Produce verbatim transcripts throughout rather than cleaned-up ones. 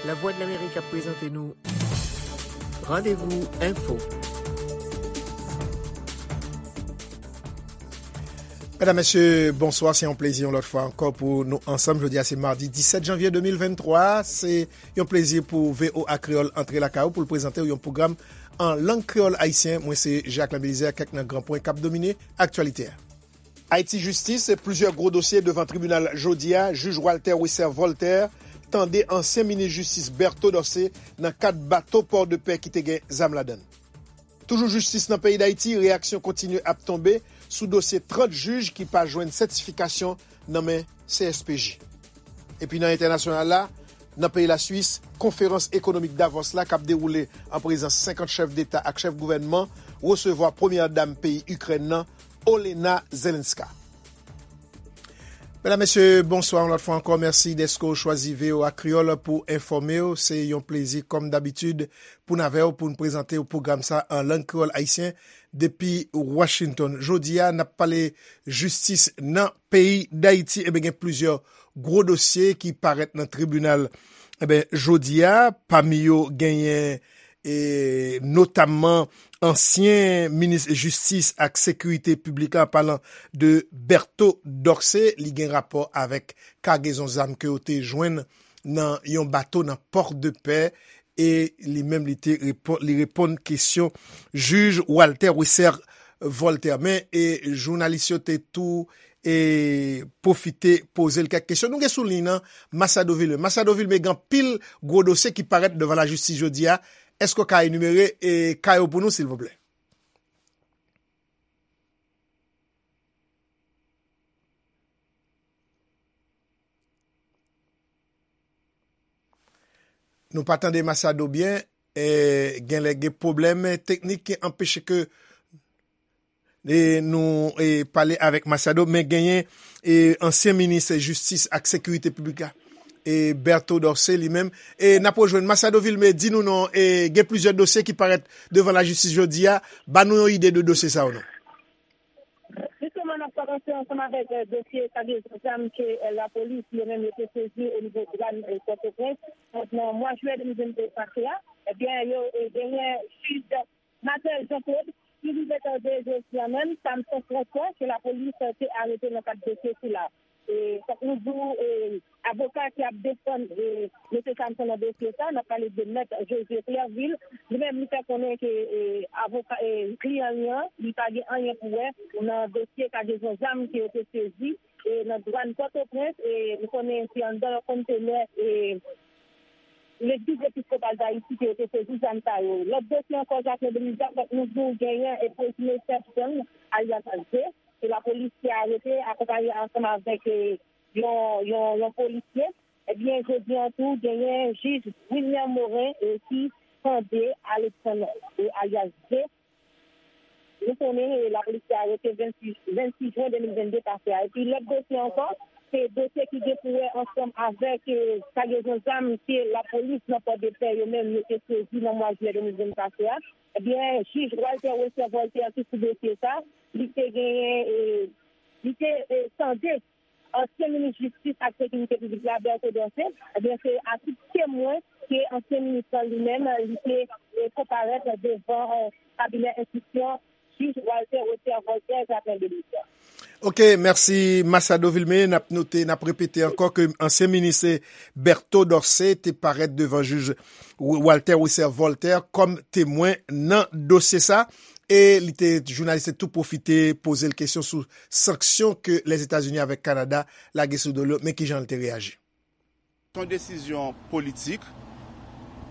Lavwadlamerik ap prezante nou Randevou Enfo. Medam, mesye, bonswa. Se yon plezi yon lòt fwa ankò pou nou ansanm. Jodi a se madi disèt janvye de mil venntwa. Se yon plezi pou V O A Kreyòl antre lakay ou pou l prezante w yon pwogram an lang kreyòl ayisyen. Mwen se Jacques Belizaire. Kèk nan gran pwen k ap domine aktyalite a. Ayiti, jistis, plizyè gwo dosye devan tribinal jodi a. Jij Walter Wesser Voltaire tande ansyen minis jistis Berto Dorcé nan kad bato Port de Paix ki te gen zam ladan l. Toujou jistis nan peyi Dayiti, reyaksyon kontinye ap tonbe sou dosye trant jij ki pa jwenn sètifikasyon nan men C S P J. Epi nan entènasyonal la, nan peyi Laswis, konferans ekonomik Davos la k ap dewoule an prezans senkant chèf deta ak chèf gouvènman resevwa premyè dam peyi Ikrèn nan, Olena Zelenska. Medam, mesye, bonswa yon lòt fwa ankò. Mèsi dèske w chwazi V O A Kreyòl pou enfòme w. Se yon plezi, kòm dabitid, pou n avè w, pou n prezante w pwogram sa an lang kreyòl ayisyen depi Washington. Jodi a, n ap pale jistis nan peyi Dayiti. Eben, gen plizyè gwo dosye ki parèt nan tribinal. Eben, jodi a, pami yo genyen e notamman ansyen minis jistis ak sekirite piblik la, an palan de Berto Dorcé, li gen rapò avèk kagezon zam ke yo te jwenn nan yon bato nan Port de Paix, e li menm li te repo-, li reponn kesyon jij Walter Wesser Voltaire. Men, e jounalis yo te tou e pwofite poze l kèk kesyon. Nou gen sou liy nan Masado Vilmé. Masado Vilmé, gen anpil gwo dosye ki parèt devan lajistis jodi a. Èske w ka enimere e ka yo pou nou, silvouplè? Nou pa tande Masado byen. E, genlè gen pwoblèm teknik ki anpeche ke e nou e pale avèk Masado, men genyen e ansyen minis jistis ak sekirite piblik la, e Berto Dorcé li menm. E n ap rejwenn Masado Vilmé, di nou non, e gen plizyè dosye ki parèt devan lajistis jodi a. Ba nou yon ide de dosye sa yo non. Jisteman, n ap kòmanse ansanm avèk, eh, dosye kagezon zam ke, eh, lapolis yo menm yo te sezi onivo dwàn, eh, Pòtoprens. Donk, nan mwa jiyè de mil vennde pase a, ebyen, yo, eh, genyen jij Marthel Jean Claude, ki rive tande jodi a menm, Samson François, ke lapolis te arete nan kad dosye sila. E, fòk nou di w, e, avoka ki ap defann, e, mesye Samson nan dosye sa, n ap pale de Mèt Josué Clervil, li menm li fè konnen ke, e, avoka, e, kliyan li an, li pa gen anyen pou wè nan dosye kagezon zam ke yo te sezi, e, nan dwàn Pòtoprens, e, nou konnen se anndan yon kontenè, e, Legliz Episkopal Dayiti ke yo te sezi zam sa yo. Lòt dosye ankò, Jacquelin Belizaire, fòk nou di w genyen e prezime Stephen, alyas Zé, ke lapolis te arete, akonpaye ansanm avèk, e, yon, yon, yon polisye. Ebyen, jodi an tou, genyen jij Wilner Morin, e, ki tande Alexandre, e, alyas Zé. Nou konnen, e, lapolis te arete vennsis, vennsis jen de mil vennde pase a. Epi lòt dosye ankò, se dosye ki gen pou wè ansanm avèk, e, kagezon zam ke lapolis nan Pòdepè yo menm yo te sezi nan mwa jiyè de mil vennde pase a. Ebyen, jij Walter Wesser Voltaire ki sou dosye sa, li te genyen, e, li te, e, tande ansyen minis jistis ak sekirite piblik la, Berto Dorcé, ebyen, se a tit temwen ke ansyen minis lan li menm, li te, e, konparèt devan, e, kabinè enstriksyon jij Walter Wesser Voltaire, Jacquelin Belizaire. Ok, mèsi Masado Vilmé. N ap note, n ap repete ankò ke ansyen minis Berto Dorcé te parèt devan jij Walter Wesser Voltaire kòm temwen nan dosye sa. E li te, jounalis te tou pwofite poze l kesyon sou sanksyon ke Lèzetazini avèk Kanada lage sou do l yo, men kijan l te reyaji. Se yon desizyon politik.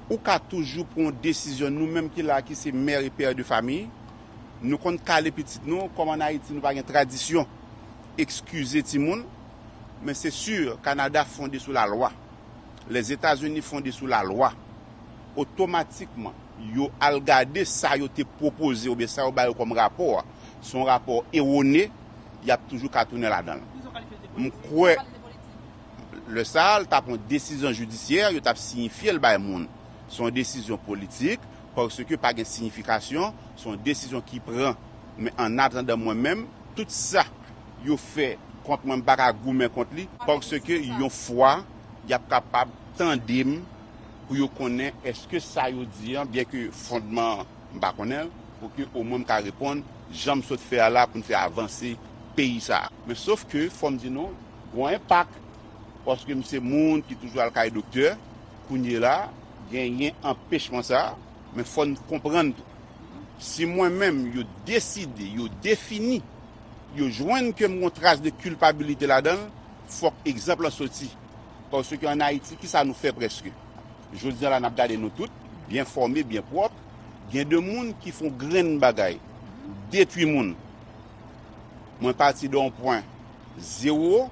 Ou ka toujou pran yon desizyon. Nou menm ki la, ki se mè e pè de famiy, nou konn kale pitit nou. Kòm ann Ayiti, nou pa gen tradisyon ekskize timoun, men se si Kanada fonde sou lalwa, Lèzetazini fonde sou lalwa, otomatikman, yo al gade sa yo te pwopoze oubyen sa yo ba yo kòm rapò a, se yon rapò ewone, y ap toujou ka tounen ladan l. M kwè, lè sa a, l t ap yon desizyon jidisyè, yo t ap siyifye l bay moun. Se yon desizyon politik, paske pa gen siyifikasyon, se yon desizyon ki pran. Men annatandan, mwen menm, tout sa yo fè Kont mwen, m pa ka goumen kont li, paske yon fwa, y ap kapab tande m pou yo konnen èske sa yo di an, byenke fondman an, m pa konnen l, pou ke omwen m ka reponn jan m sot fè a la pou n fè avanse peyi sa a. Men sof ke, fò m di nou, gon enpak, paske m se moun ki toujou al kay doktè, kounye la, genyen anpechman sa a, men fò n konprann tou. Si mwen menm, yo deside, yo defini, yo jwenn ke m gon tras de kilpabilite ladan l, fòk egzanp lan soti. Paske ann Ayiti, kisa nou fè prèske? Jodi a la, n ap gade nou tout, byen fòme, byen pwòp. Gen de moun ki fè yon grenn bagay, detwi moun. Mwen pati de yon pwen zewo,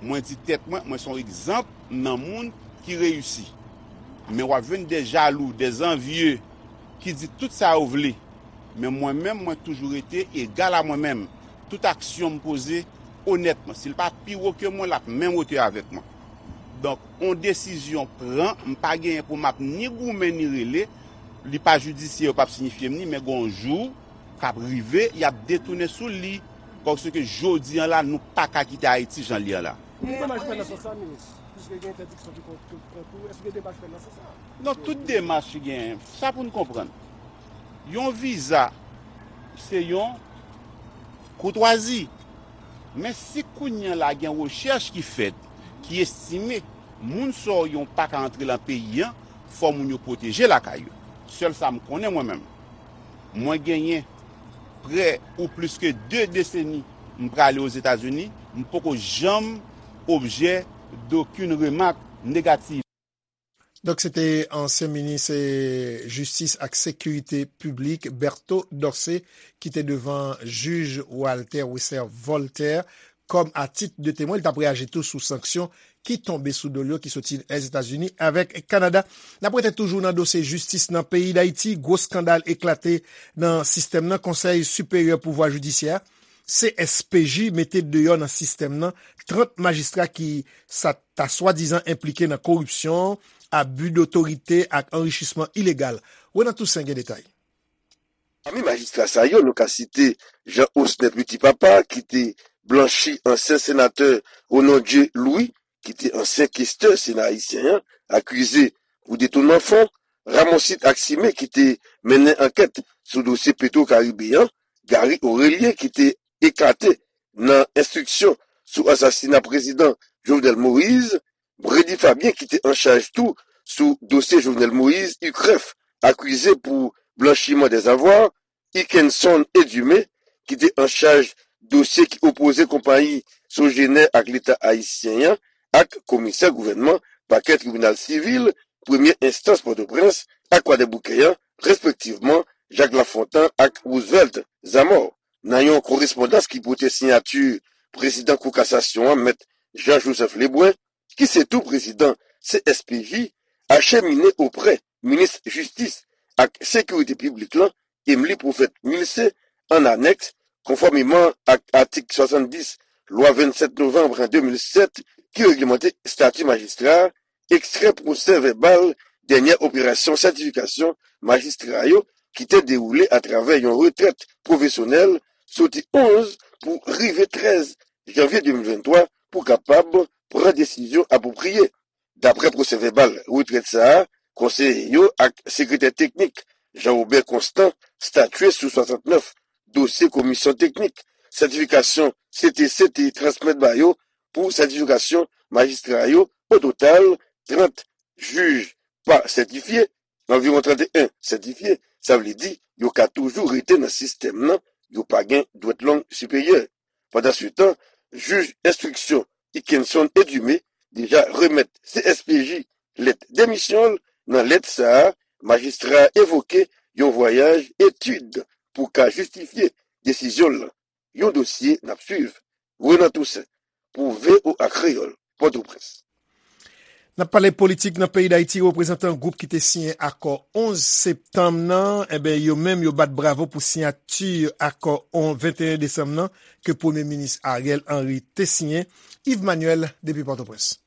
mwen di tèt mwen, mwen se yon egzanp nan moun ki reyisi. Men w ap jwenn de jalou, de zanvye ki di tout sa yo vle. Men mwen menm, mwen toujou rete egal a mwen menm. Tout aksyon m poze onètman. Si l pa pi wo ke mwen, l ap menm wotè avèk mwen. Donk, yon desizyon pran, m pa genyen pou m ap ni goumen ni rele, li pa jidisyè, yo p ap siyifye m ni, men gon jou k ap rive, y ap detounen sou li. Paske jodi an la, nou pa ka kite Ayiti jan l ye an la. Gen demach fèt nan sans sa, minis? Piske gen entèdiksyon ki pran, pran kou, èske gen demach fèt nan sans sa? Non, tout demach ki genyen, sa pou n konprann. Yon viza, se yon koutwazi. Men si kounye a la gen rechèch ki fèt, ki estime moun sa yo pa ka antre lan peyi an, fò moun yo pwoteje lakay yo. Sèl sa m konnen mwen menm. Mwen genyen prè ou plis ke de deseni m prale Ozetazini, m poko janm objè dokenn remak negativ. Donk, se te ansyen minis, eh, jistis ak sekirite piblik, Berto Dorcé, ki te devan jij Walter Wesser Voltaire kòm a tit de temwen. Li t ap reyaji tou sou sanksyon ki tonbe sou do l yo, ki soti Lèzetazini avèk Kanada. N ap rete toujou nan dosye jistis nan peyi Dayiti. Gwo eskandal eklate nan sistèm nan. Konsèy Siperyè Pouvwa Jidisyè, C S P J, mete deyò nan sistèm nan trant majistra ki sa ta swadizan enplike nan koripsyon, abi dotorite ak anrichisman ilegal. Renan Toussaint gen detay. Pami majistra sa yo, nou ka site Jean Osner Petit Papa, ki te blanchi ansyen senatè Renondye Louis, ki te ansyen kestè Sena ayisyen an, akize pou detounman fon, Ramonsit Aximé, ki te mennen ankèt sou dosye Petro Caribe an, Gary Orélien, ki te ekate nan enstriksyon sou asasina prezidan Jovenel Moïse, Bredy Fabien, ki te an chaj tou sou dosye Jovenel Moïse, UCREF, akize pou blanchiman dèzavwa, Ikenson Edumé, ki te an chaj dosye ki opoze konpayi Sogener ak Leta ayisyen an, ak komisè gouvènman pakè tribinal sivil premye enstans Pòtoprens ak Kwadèboukè an, respektivman, Jacques Lafontant ak Roosevelt Zamor. Nan yon korespondans ki pote siyati prezidan Kou Kasasyon an, Mèt Jean Joseph Lebrun, ki se tou prezidan C S P J, achemine oprè minis jistis ak sekirite piblik lan, Emily Prophète Milcé, an anèks, konfòmeman ak atik swasanndis Lwa vennsèt novanm de mil sèt ki reglemante estati majistra, ekstrè pwosè vèbal dènyè operasyon sètifikasyon majistra yo ki te dewoule atravè yon retrèt pwofesyonèl soti onz pou rive trèz janvye de mil venntwa pou kapab pran desizyon apwopriye. Daprè pwosè vèbal retrèt sa a, konseye yo ak sekretè teknik Jean Robert Constant statye sou swasannnèf dosye komisyon teknik sètifikasyon C T C te transmèt ba yo pou sètifikasyon majistra yo. O total, trant jij pa sètifye, anviwon trannteyen sètifye, sa vle di yo ka toujou rete nan sistèm nan, yo pa gen dwèt long siperyè. Pandansetan, jij enstriksyon Ikenson Edumé deja remèt C S P J lèt demisyon l. Nan lèt sa a, majistra a evoke yon vwayaj etid pou ka jistifye desizyon l lan. Yon dosye n ap swiv. Renan Toussaint pou V O A Kreyòl, Pòtoprens. N ap pale politik nan peyi Dayiti, reprezantan gwoup ki te siyen akò onz septanm nan, enben, yo menm, yo bat bravo pou siyati akò on venteyen desanm nan ke Premye Minis Ariel Henry te siyen. Yves Manuel, depi Pòtoprens.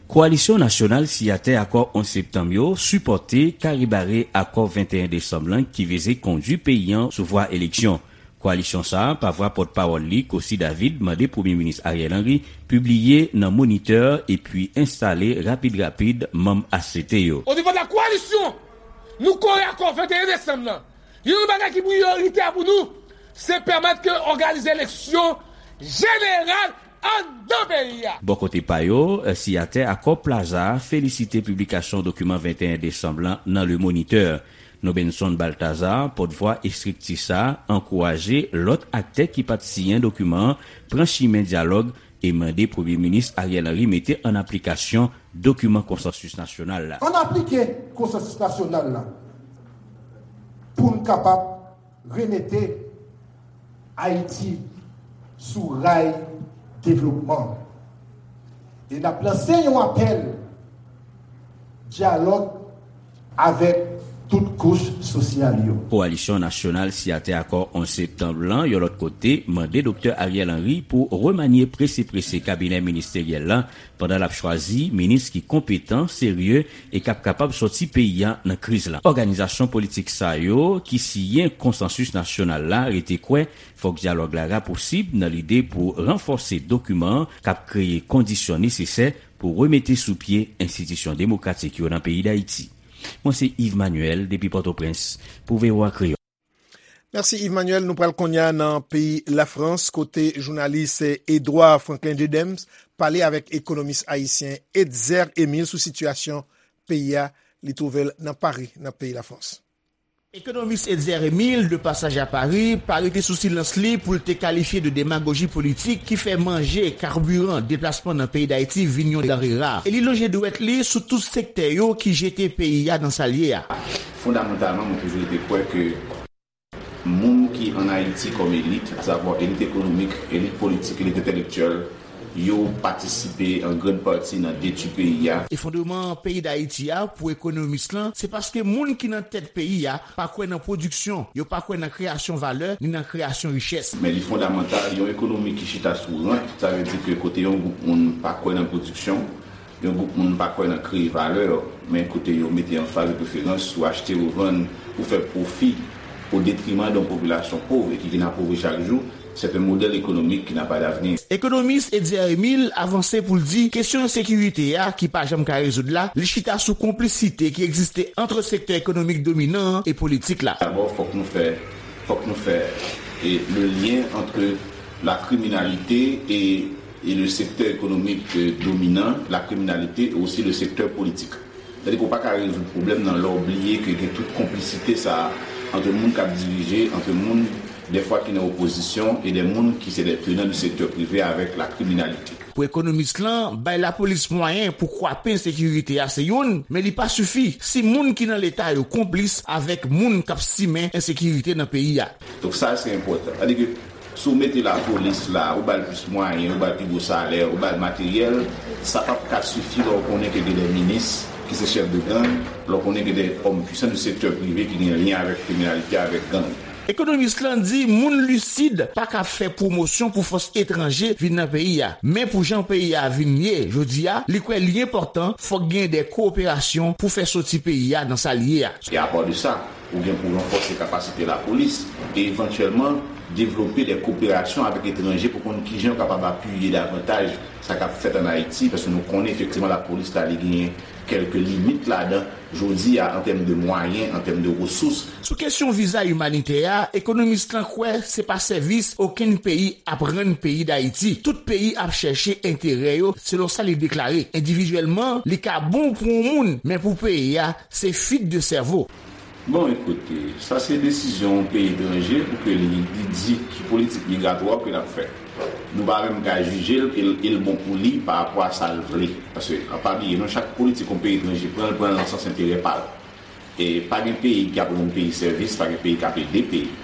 Kowalisyon nasyonal siyatè akò onz septanm yo sipòte kare bare akò venteyen desanm lan ki vize kondui peyi an sou vwa eleksyon. Koalisyon sa a, pa vwa pòtpawòl li, Cossy David, mande Premye Minis Ariel Henry pibliye nan Moniteur epi enstale rapid rapid manm A C T yo. Au niveau de la coalition, nou kore akò venteyen desanm nan. Youn nan bagay ki priyoritè pou nou, se pèmèt ke òganize eleksyon jeneral anndan peyi a. Bò kote pa yo, siyatè akò Plaza a felisite piblikasyon dokiman venteyen desanm lan nan Le Moniteur. Nobenson Balthazar, pòtvwa estrikti sa a, ankouraje lòt aktè ki pa t siyen dokiman an pran chimen dyalòg e mande Premye Minis Ariel Henry mete ann aplikasyon dokiman konsansis nasyonal la. Ann aplike konsansis nasyonal la pou n kapab remete Ayiti sou ray devlopman. E n ap lanse yon apèl dyalòg avèk tout kouch sosyal yo. Koalisyon Nasyonal siyatè akò onz septanm lan, yon lòt kote, mande Doktè Ariel Henry pou remanye prese prese kabinè ministeryèl la pandan l ap chwazi minis ki konpetan, serye e k ap kapab sòti peyi a nan kriz la. Òganizasyon politik sa yo ki siyen konsansis nasyonal la rete kwè fòk dyalòg la rapousib nan lide pou ranfòse dokiman an k ap kreye kondisyon nesesè pou remete sou pye enstitisyon demokratik yo nan peyi Dayiti. Mwen se Yves Manuel depi Pòtoprens pou V O A Kreyòl. Mèsi Yves Manuel. Nou pral kounye a nan peyi Lafrans kote jounalis Edouard Franklin Dedems pale avèk ekonomis ayisyen Etzer Emile sou sitiyasyon peyi a li twouve l nan Pari, nan peyi Lafrans. Ekonomis Etzer Emile, de pasaj a Pari, pa rete sou silans li pou l te kalifye de demagoji politik ki fè manje kabiran deplasman nan peyi Dayiti vin yon danre ra. E li lonje dwèt li sou tout sektè yo ki jete peyi a nan sa l ye a. Fondamantalman, mwen toujou rete kwè ke moun ki ann Ayiti kòm elit, asavwa elit ekonomik, elit politik, elit entèlektyèl, yo patisipe an grann pati nan detwi peyi a. Efondreman peyi Dayiti a, pou ekonomis lan, se paske moun ki nan tèt peyi a pa kwè nan pwodiksyon, yo pa kwè nan kreyasyon valè, ni nan kreyasyon richès. Men li fondamantal, yon ekonomi ki chita sou rant, sa vle di ke kote yon gwoup moun pa kwè nan pwodiksyon, yon gwoup moun pa kwè nan kreye valè, men kote yo mete anfaz de preferans sou achte, revann, pou fè pwofi o detriman de yon popilasyon pòv e ki vin apovri chak jou, c'est un modèle économique qui n'a pas d'avenir. Ekonomis Etzer Emile avanse pou l di kesyon ensekirite a ki pa janm ka rezoud la, li chita sou konplisite ki egziste ant sektè ekonomik dominan an e politik la. Dabò, fòk nou fè, fòk nou fè, e, le lien entre la criminalité et, et le secteur économique, euh, dominant, la criminalité et aussi le secteur politique. Sètadi ke w pa ka rezoud pwoblèm nan lè w bliye ke gen tout konplisite sa a ant moun k ap dirije, ant moun dèfwa ki nan opozisyon e de moun ki se de tenan du sektè prive avèk la kriminalite. Pou ekonomis lan, bay lapolis mwayen pou kwape ensekirite a se youn, men li pa sifi si moun ki nan Leta yo konplis avèk moun k ap simen ensekirite nan peyi a. Donk sa se enpòtan. Sètadi ke si w mete lapolis la, ou ba l plis mwayen, ou ba l pi gwo salè, ou ba l materyèl, sa p ap ka sifi lè w konnen ke gen de minis ki se chèf de gang, lè w konnen gen de òm pwisan du sektè prive ki gen lyen avèk kriminalite, avèk gang. Ekonomis lan di moun lisid pa ka fè pwomosyon pou fòs etranje vin nan peyi a. Men pou jan peyi a vin ye jodi a, li kwè li enpòtan fòk gen de kowoperasyon pou fè soti peyi a nan sa l ye a. E apa de sa, ou gen pou ranfòse kapasite lapolis e evantyèlman devlope de koperasyon avèk etranje pou konn kijan yo kapab apiye davantaj sa k ap fèt ann Ayiti, paske nou konnen efektivman lapolis la li genyen kèlke limit ladan jodi a an tèm de mwayen, an tèm de resous. Sou kesyon viza imanitè a, ekonomis lan kwè se pa sèvis okenn peyi ap rann peyi Dayiti. Tout peyi ap chèche enterè yo, selon sa li deklare. Endividyèlman, li ka bon pou yon moun, men pou peyi a, se fwit de sèvo. Bon, ekoute, sa se desizyon yon peyi etranje pou ke li, li di ki politik migratwa ke l ap fè. Nou pa menm ka jije l, e l, e l bon pou li pa rapò a sa l vle. Paske, an pa bliye, non, chak politik yon peyi etranje pran, l pran l nan sans enterè pa l. E pa gen peyi k ap rann peyi sèvis, pa gen peyi k ap ede peyi.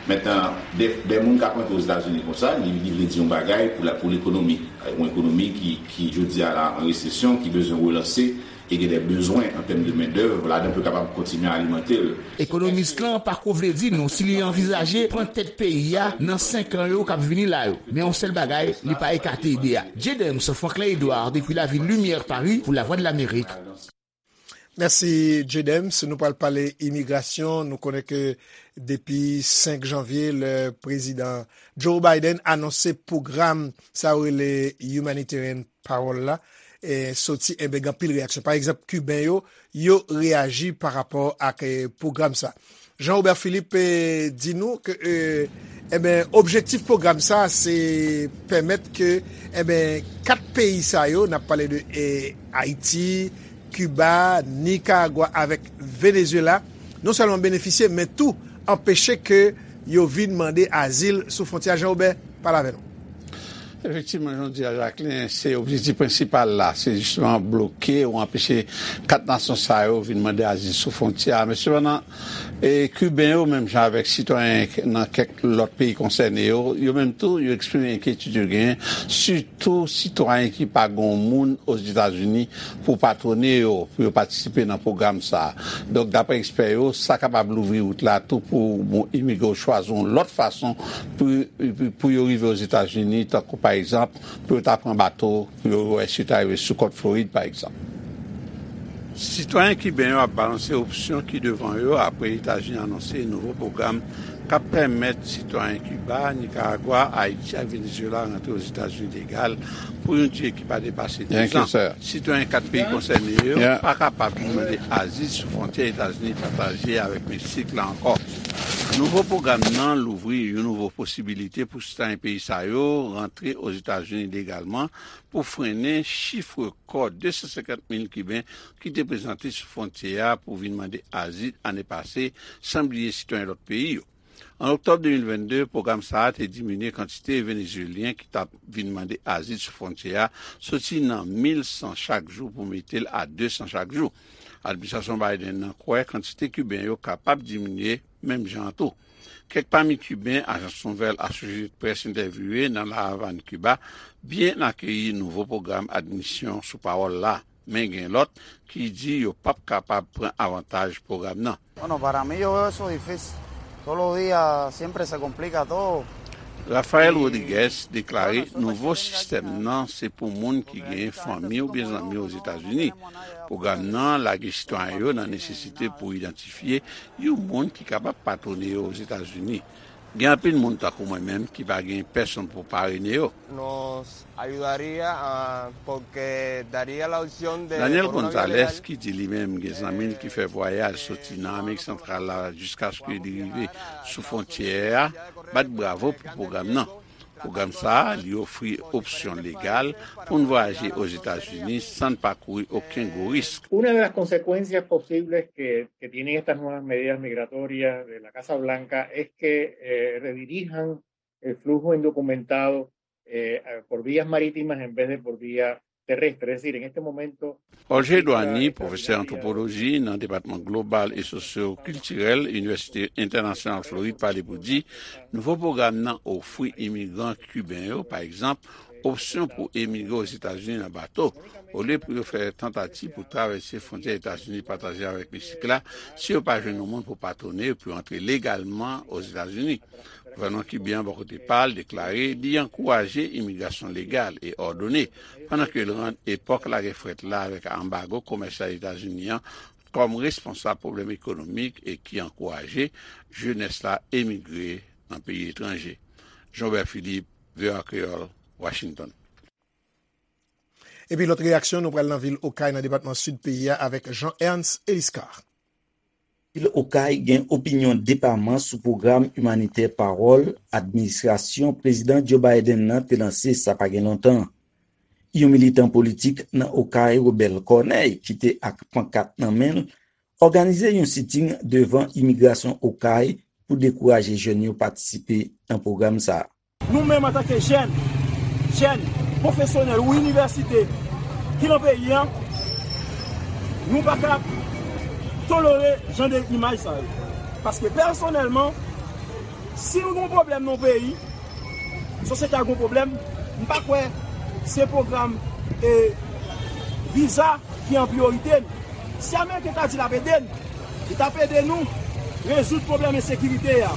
Mentnan, de, de moun k ap rantre Ozetazini konsa, li, li vle di yon bagay pou la, pou lekonomi. Yon ekonomi ki, ki jodi a la an resesyon, ki bezwen relanse, e gen de bezwen an tèm de mendèv, ladan pou kapab kontinye alimante l. Ekonomis lan pa ko vle di nou si li anvizaje pran tèt peyi a nan senk an yo k ap vini la yo. Men yon sèl bagay, li pa ekate ide a. J. Dems, Franklin Edouard, depi lavil Limyè, Pari, pou Lavwadlamerik. Mèsi, J-Dems. Nou pral pale imigrasyon. Nou konnen ke depi senk janvye, lè prezidan Joe Biden anonse pwogram sa yo rele Humanitarian Parole la, e, soti, enben, gen anpil reyaksyon. Pa egzanp, Kiben yo, yo reyaji pa rapò ak, e, pwogram sa. Jean Robert Philippe, e, di nou ke, e, enben, objektif pwogram sa, se pèmèt ke, enben, kat peyi sa yo, n ap pale de, e, Ayiti, Kiba, Nikaragwa avèk Venezuela, non sèlman benefisye, men tou anpeche ke yo vin mande azil sou fwontyè a. Jean Robert, pale avè nou. Efektivman, jan w di a, Jacquelin, se objektif prensipal la, se jisteman bloke ou anpeche kat nasyon sa yo vin mande azil sou fwontyè a. Men sepandan, e, Kiben yo, menm jan avèk sitwayen nan kèk lòt peyi konsène yo, yo menm tou, yo eksprime enkyetid yo genyen, sitou sitwayen ki pa gen yon moun Ozetazini pou patwone yo, pou yo patisipe nan pwogram sa a. Donk, daprè ekspè yo, sa kapab louvri wout la tou pou bon, imigre yo chwazi yon lòt fason pou, pou, pou yo rive Ozetazini, tankou pa egzanp, pou yo ta pran bato, pou yo wè si yo ta rive sou kòt Florid, pa egzanp. Sitwayen kiben yo ap balanse opsyon ki devan yo apre Etazini anonse nouvo pwogram k ap pèmèt sitwayen Kiba, Nikaragwa, Ayiti ak Venezuela rantre Ozetazini legal pou yon dire ki pa depase dizan. Sitwayen kat peyi konsène yo pa kapab vin mande azil sou fwontyè Etazini pataje avèk Meksik la ankò. Nouvo pwogram nan louvri yon nouvo posibilite pou sitwayen peyi sa yo rantre Ozetazini legalman pou frennen chif rekò de san senkant mil Kiben ki te prezante sou fwontyè a pou vin mande azil ane pase, san bliye sitwayen lòt peyi yo. An oktòb de mil vennde, pwogram sa a te diminye kantite Venezuelyen ki t ap vin mande azil sou fwontyè a, soti nan mil san chak jou pou mete l a de san chak jou. Administrasyon Biden nan kwè kantite Kiben yo kapab diminye menm jan an tou. Kèk pami Kiben ajans nouvèl Associated Press entèvyouye nan La Havane, Kiba, byen akeyi nouvo pwogram admisyon sou pawòl la, men gen lòt ki di yo p ap kapab pran avantaj pwogram nan. Bueno, para mí yo veo eso difícil. Todos los días siempre se complica todo. Rafael Rodriguez deklare nouvo sistèm nan se pou moun ki gen fanmi oubyen zanmi Ozetazini. Pwogram nan lage sitwayen yo nan nesesite pou idantifye yon moun ki kapab patwone yo Ozetazini. Gen anpil moun tankou mwen menm ki pa gen pèsonn pou parene yo. Nos ayudaría, ah, porque daría la opción de, Daniel por una vía Gonzalez, legal, ki di li menm gen zanmi l ki fè vwayaj soti nan Amerik Santral la jiskaske li rive sou fwontyè a, bat bravo pou pwogram nan. Pwogram sa a, li ofri opsyon legal pou n vwayaje Ozetazini san n pa kouri okenn gwo risk. Una de las consecuencias posibles que, que tienen estas nuevas medidas migratorias de la Casa Blanca es que, eh, redirijan el flujo indocumentado, eh, por vías marítimas en vez de por vía terrestre. Es decir, en este momento Olger Edouani, pwofesè antwopoloji nan Depatman Global e Sosyo-Kiltirèl Inivèsite Entènasyonal Florid, pale pou di, nouvo pwogram nan ofri imigran kiben yo, pa egzanp, opsyon pou emigre Ozetazini nan bato, olye pou yo fè tantativ pou travèse fwontyè Etazini pataje avèk Meksik la, si yo pa jwenn yon moun pou patwone yo pou yo antre legalman Ozetazini. Gouvènman kiben an bò kote pa l deklare li ankouraje imigrasyon legal e òdone, pandan ke l rann epòk lagè frèt la avèk anbago komèsyal Etazini an kòm responsab pwoblèm ekonomik e ki ankouraje jenès la emigre nan peyi etranje. Jean Robert Philippe, V O A Kreyòl, Washington. Epi lòt reyaksyon, nou pral nan vil Okay, nan depatman Sid peyi a, avèk Jean Ernst Eliscar. Vil Okay gen opinyon depaman sou pwogram imanitè Pawòl administrasyon Prezidan Joe Biden nan te lanse sa pa gen lontan. Yon militan politik nan Okay, Robert Corneille, ki te ak pankat nan men l, òganize yon siting devan imigrasyon Okay pou dekouraje jèn yo patisipe nan pwogram sa a. Nou menm antanke jèn, jèn, pwofesyonèl ou inivèsite ki nan peyi a, nou pa ka tolere jan de imaj sa yo. Paske pèsonèlman, si nou gen yon pwoblèm nan yon peyi, sosyete a gen yon pwoblèm, m pa kwè se pwogram, e, viza ki an priyorite n. Si Ameriken ta di l ap ede n, li t ap ede nou rezoud pwoblèm ensekirite a.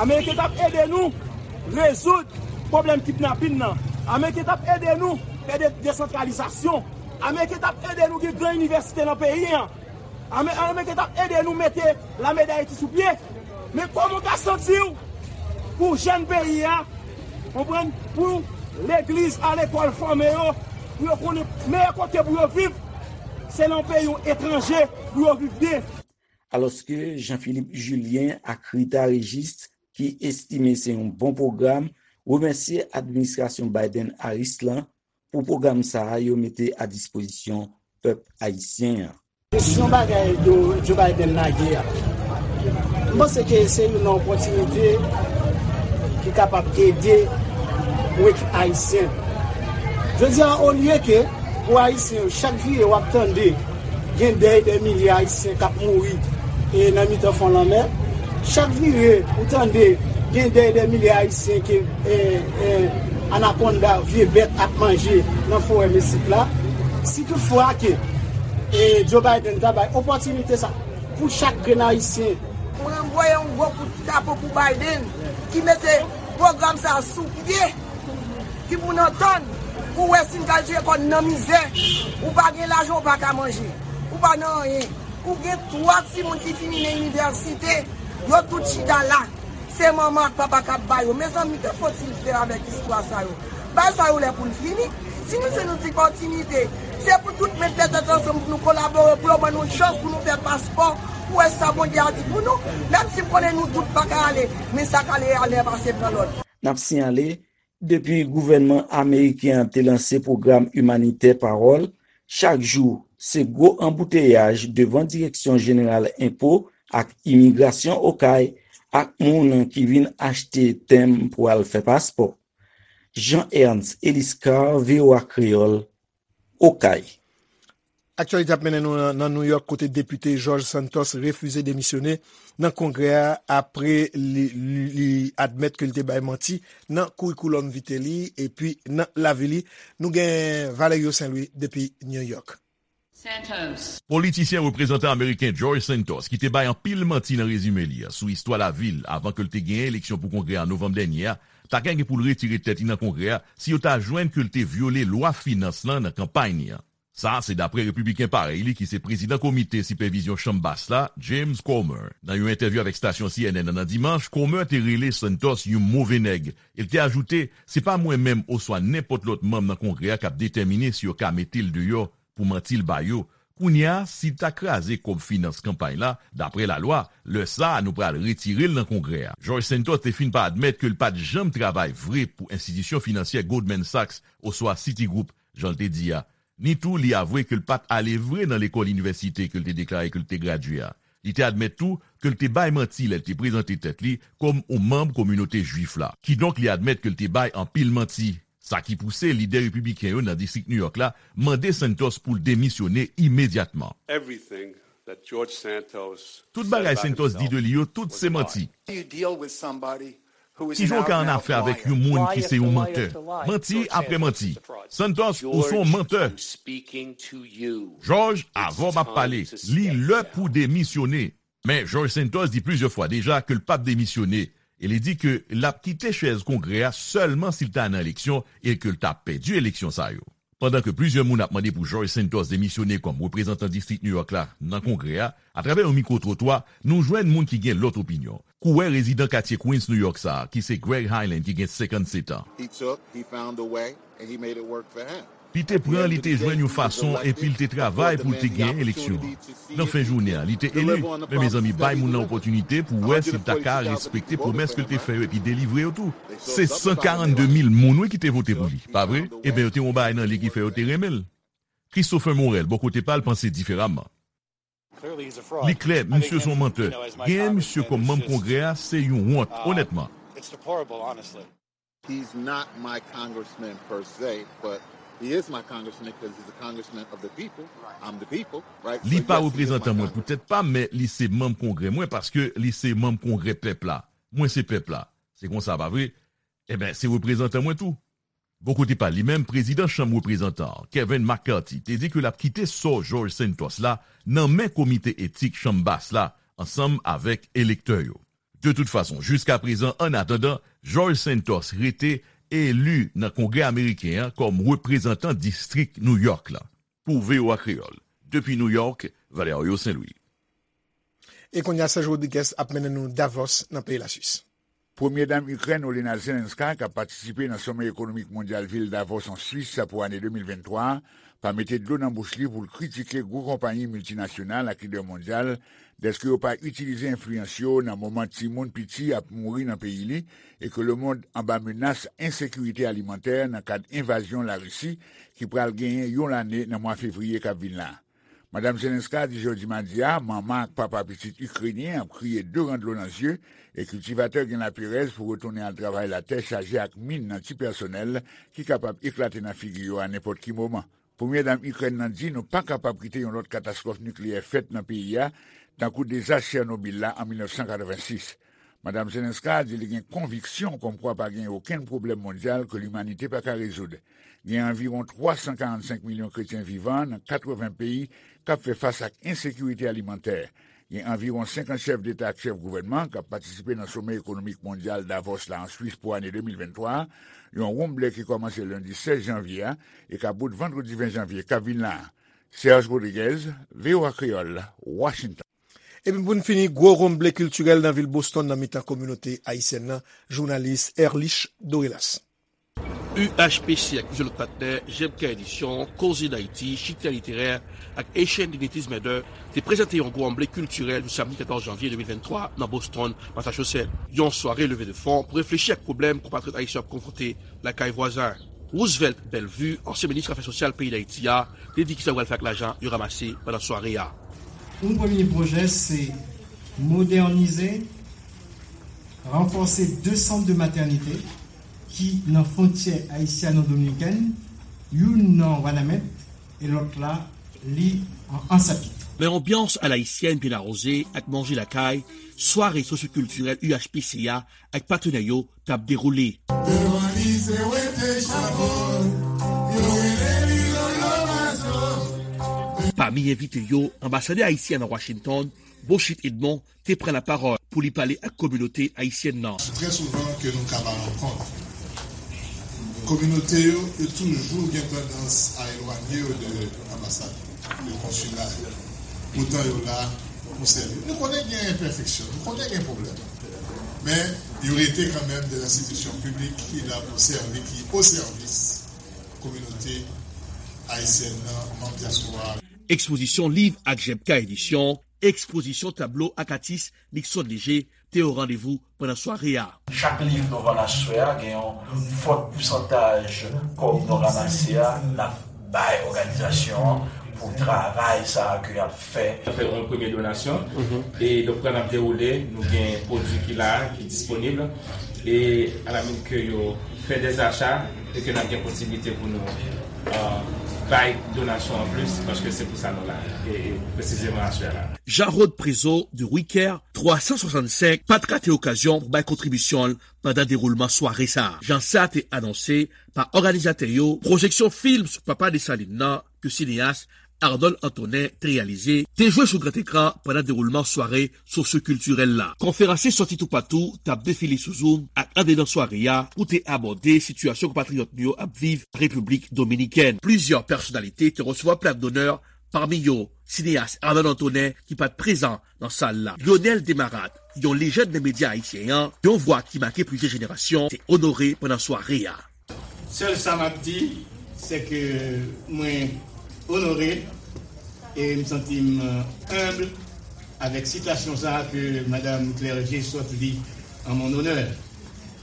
Ameriken t ap ede nou rezoud pwoblèm kidnapin nan. Ameriken t ap ede nou fè de-, desantralizasyon. Ameriken t ap ede nou gen gran inivèsite nan peyi a. Ame-, Ameriken t ap ede nou mete lame Dayiti sou pye. Men kòman w ka santi w pou jèn peyi a, konprann, pou legliz a lekòl fòme yo, pou yo konnen meyè kote pou yo viv, se nan yon peyi etranje pou yo viv byen. Alòske Jean Philippe Julien ak Rita Régis, ki estime se yon bon pwogram, remèsye administrasyon Biden-Harris lan pou pwogram sa a yo mete a dispozisyon pèp ayisyen an. Kesyon bagay Joe, Joe Biden lage a, m panse ke se yon opòtinite ki kapab ede pou ekip ayisyen. Jodi a, olye ke pou ayisyen yo, chak vire w ap tande gen dèy dè milye ayisyen k ap mouri e nan mitan fon lanmè. Chak vire ou tande gen dèy dè milye ayisyen ke e, e, anakonda, vye bèt ap manje nan forè Meksik la. Si toutfwa ke e, Joe Biden ta bay opòtinite sa pou chak grenn ayisyen. Mwen voye yon gwo kout chapo pou Biden ki mete pwogram sa sou pye, ki pou n antann pou wè si n ka jere kò n nan mizè. Ou pa gen lajan, ou pa ka manje, ou pa nan anyen. Ou gen twa timoun ki fini nan inivèsite, yo tout chita la. Se manman ak papa k ap ba yo. Mezanmi, que faut-il faire avec istwa sa yo? Bagay sa yo lè pou l fini. Si nou jwenn yon ti opòtinite, se pou tout met tèt ansanm pou nou kolabore, pou yo ban nou chans pou nou fè paspò, pou wè sa Bondye a di pou nou. Menm si m konnen nou tout pa ka ale, men sa k ale, ale, pase pran lòt. N ap siyale, depi gouvènman ameriken an te lanse pwogram imanitè Pawòl, chak jou, se gwo anbouteyaj devan Direksyon Jeneral Enpo ak Imigrasyon Okay ak moun ki vin achte tenb pou al fè paspò. Jean Ernst Eliscar, V O A Kreyòl, Okay. Aktyalite ap mennen nou nan, nan New York, kote depite George Santos refize demisyone nan Kongrè a apre li, li, li admèt ke li te bay manti nan curriculum vitae li epi nan lavi li. Nou gen Valerio Saint Louis depi New York. Santos. Politisyen reprezantan ameriken George Santos, ki te bay anpil manti nan rezime li a sou istwa lavi l avan ke l te genyen eleksyon pou Kongrè a novanm dènye a, ta gen pou l retire tèt li nan Kongrè a si yo ta jwenn ke l te vyole lwa finans lan nan kanpay li an. Sa a se dapre repibliken parèy li ki se prezidan komite sipèvizyon Chanm Bas la, James Comer. Nan yon entèvyou avèk stasyon C N N nan, nan dimanch, Comer te rele Santos yon move nèg. E l te ajoute, se pa mwen menm oswa nenpòt lòt manm nan Kongrè a k ap detèmine si yo ka mete l deyò pou manti l ba yo. Kounye a, si l ta kraze kòb finans kanpay la, dapre lalwa, lè sa a nou pral retire l nan Kongrè a. George Santos te fin pa admèt ke l pa t janm travay vre pou enstitisyon finansyè Goldman Sachs oswa Citigroup, jan l te di a. Ni tou, li avwe ke l pa t ale vre nan lekòl inivèsite ke l te deklare ke l te gradye a. Li te admèt tou ke l te bay manti lè l te prezante tèt li kòm yon manm kominote Jwif la. Kidonk, li admèt ke l te bay anpil manti. Sa ki pouse lidè repibliken yo nan distrik New York la mande Santos pou l demisyone imedyatman. Everything that George Santos Tout bagay Santos di de li yo, tout se manti. Kijan w ka annafè avèk yon moun ki se yon mantè? Manti apre manti. Santos, ou se yon mantè. George, avè w m ap pale. Li lè pou demisyone. Men George Santos di plizyè fwa deja ke l p ap demisyone, e li di ke l ap kite chèz Kongrè a sèlman si l ta nan eleksyon e ke l ta pèdi eleksyon sa yo. Pandan ke plizyè moun ap mande pou George Santos demisyone kòm reprezantan distrik New York la nan Kongrè a, atravè yon mikwo-twotwa, nou jwenn moun ki gen lòt opinyon. Kouwè rezidan katye Queens, New York sa a, ki se Greg Hyland, ki gen senkannsèt an. He took, he found a way, and he made it work for him. Li te pran, li te jwenn yon fason, epi l te travay pou l te genyen eleksyon an. Nan fen jounen an, li te eli. Men, mezanmi, bay moun nan opòtinite pou wè si l ta ka respekte pwomès ke l te fè yo epi delivre yo tou. Se san karannde mil moun, wi, ki te vote pou li, pa vre? Ebyen, yo te gen yon bagay nan li ki fè yo te renmen l. Christopher Morel, bò kote pa l, panse diferaman. Li klè, misye se yon mantè. Genyen misye kòm manm Kongrè a, se yon wont, onètman. He's not my congressman per se, but he is my congressman because he's a congressman of the people. I'm the people, right? Li pa reprezantan mwen poutèt pa m, men li se manm Kongrè mwen paske li se manm Kongrè pèp la. Mwen se pèp la. Se konsa, pa vre? Ebyen, se reprezantan mwen tou. Bò kote pa l, li menm, prezidan Chanm Reprezantan an, Kevin McCarthy, te di ke l ap kite sò George Santos la nan men Komite Etik Chanm Bas la ansanm avèk elektè yo. De tout fason, jiska prezan, annatandan, George Santos rete eli nan Kongrè ameriken an kòm reprezantan distrik New York la. Pou V O A Kreyòl, depi New York, Valerio Saint Louis. E kounye a, Serge Rodriguez ap mennen nou Davos, nan peyi Laswis. Premye Dam Ikrèn, Olena Zelenska, k ap patisipe nan Somè Ekonomik Mondyal vil Davos, an Swis, pou ane de mil venntwa a, pa mete dlo nan bouch li pou l kritike gwo konpayi miltinasyonal ak lidè mondyal dèske yo pa itilize enfliyans yo nan moman timoun piti ap mouri nan peyi li e ke lemonn anba menas ensekirite alimantè nan kad envazyon Larisi ki pral genyen yon lane nan mwa fevriye k ap vin la. Madam Zelenska di jodi madi a manman ak papa pitit ikrenyen ap kriye de ran dlo nan zye e kiltivatè gen laperèz pou retounen al travay latè chaje ak min nan ti pèsonèl ki kapab eklate nan figi yo a nenpòt ki moman. Premye Dam Ikrèn nan di nou pa kapab kite yon lòt katastwòf nikleyè fèt nan peyi a, tankou dezas Chènobil la an mil nèf san katrevensis. Madam Zelenska di li gen konviksyon kòmkwa pa gen okenn pwoblèm mondyal ke limanite pa ka rezoud. Gen anviwon twa san karannsenk milyon kretyen vivan nan katreven peyi k ap fè fas ak ensekirite alimantè. Gen anviwon senkant chèf deta ak chèf gouvènman k ap patisipe nan Somè Ekonomik Mondyal Davos la an Swis pou ane de mil venntwa a, yon wonm ble ki kòmanse lendi sèz janvye a e k ap bout vandredi ven janvye k ap vin la a. Serge Rodriguez, V O A Kreyòl, Washington. Epi pou n fini, gwo wonm ble kiltirèl nan vil Boston nan mitan kominote ayisyèn nan, jounalis Erlich Dorelas. U H P C ak plizyè lòt patnè, J M K Edisyon, Koze Dayiti, Chita Literè ak Haitian Dignities Matter te prezante yon gwo wonm ble kiltirèl jou samdi katòz janvye de mil venntwa nan Boston, Massachusetts. Yon sware leve de fon pou reflechi ak pwoblèm konpatriyòt ayisyen ap konfwonte lakay vwazen. Roosevelt Bellevue, ansyen minis afè sosyal peyi Dayiti a, te di kisa yo pral fè ak lajan yo ranmase pandan sware a. Un premye pwojè, se modènize, ranfòse de sant de matènite ki nan fwontyè ayisyano-dominikèn, youn nan Wanament e lòt la, li an Ansapit. Men anbyans alayisyèn byen awoze ak manje lakay, sware sosyokiltirèl U H P C a ak patnè yo t ap dewoule. Devan lise wete chabon, yo rele li Lolo Mazo. Pami envite yo, anbasadè ayisyen an Washington, Beauchit Edmond, te pran lapawòl pou li pale ak kominote ayisyèn nan. Trè souvan ke nou ka ba rankont. Kominote yo, yo toujou gen tandans a elwanye yo de anbasad, de konsila yo. Poutan yo la pou sèvi. Nou konnen gen enpèfeksyon, nou konnen gen pwoblèm. Men, yo rete kanmenm de enstitisyon piblik ki la pou sèvi, ki o sèvis kominote ayisyèn nan, manm dyaspora a. Ekspozisyon liv ak J M K Edisyon, ekspozisyon tablo ak atis Nixon Léger te o randevou pandan sware a. Chak liv nou vann aswè a, gen yon fòt pousantaj kòb nou ranmase a, n ap bay òganizasyon an pou travay sa a ke y ap fè. Fè yon premye donasyon, e donk, pandan n ap dewoule, nou gen pwodui ki la, ki disponib, e alamin ke yo fè dèzacha, e ke n ap gen posiblite pou nou, euh, bay donasyon anplis, paske se pou sa nou la, e, e presizeman aswè la. Jean-Rod Prézeau de Wicker twa san swasannsenk pa t rate okazyon pou bay kontribisyon l pandan dewoulman sware sa a. Jan sa te anonse pa òganizatè yo, pwojeksyon fim sou papa Desalin nan ke sineyas Arnold Antonin te reyalize, te jwe sou gran ekran pandan dewoulman sware sosyokiltirèl la. Konferansye sòti toupatou t ap defile sou Zoom ak andedan sware a pou te abòde sitiyasyon konpatriyòt nou yo ap viv Repiblik Dominikèn. Plizyè pèsonalite te resevwa plak donè, pami yo sineyas Arnold Antonin ki pa t prezan nan sal la. Lionel Desmarest, yon lejand nan medya ayisyen an, yon vwa ki make plizyè jenerasyon, te onore pandan sware a. Sèl sa m ap di, se ke mwen onore e m santi m, euh, enb avèk sitasyon sa a ke Madam Clergé sot li an mon onè.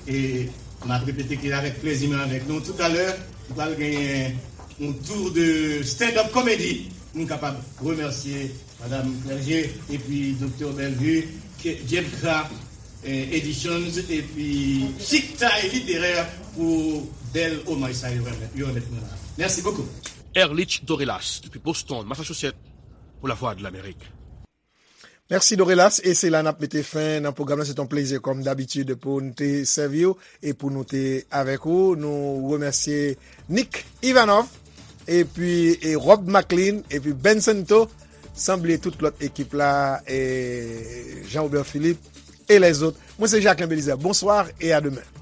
E m ap repete ke avèk plezi m avèk nou. Toutalè, nou pral genyen yon tour de stand-up comedy pou nou kapab remèsye Madam Clergé epi Doktè Bellevue, ke J M K, eh, Editions epi Chiktay Literè pou bèl omaj sa yo remèt, yo remèt mwen la. Merci beaucoup. Erlich Dorelas, depi Boston, Massachusetts, pou Lavwadlamerik. Mèsi Dorelas, e se la n ap mete fen nan pwogram nan. Se t on plezi kòm dabitid pou n te sèvi w e pou nou te avèk ou. Nou remèsye Nick Ivanov, epi, e Rob Maclean, epi Ben Santo, san bliye tout lòt ekip la, e Jean Robert Philippe, e lèzòt. Mwen se Jacquelin Belizaire. Bonsoir et à demain.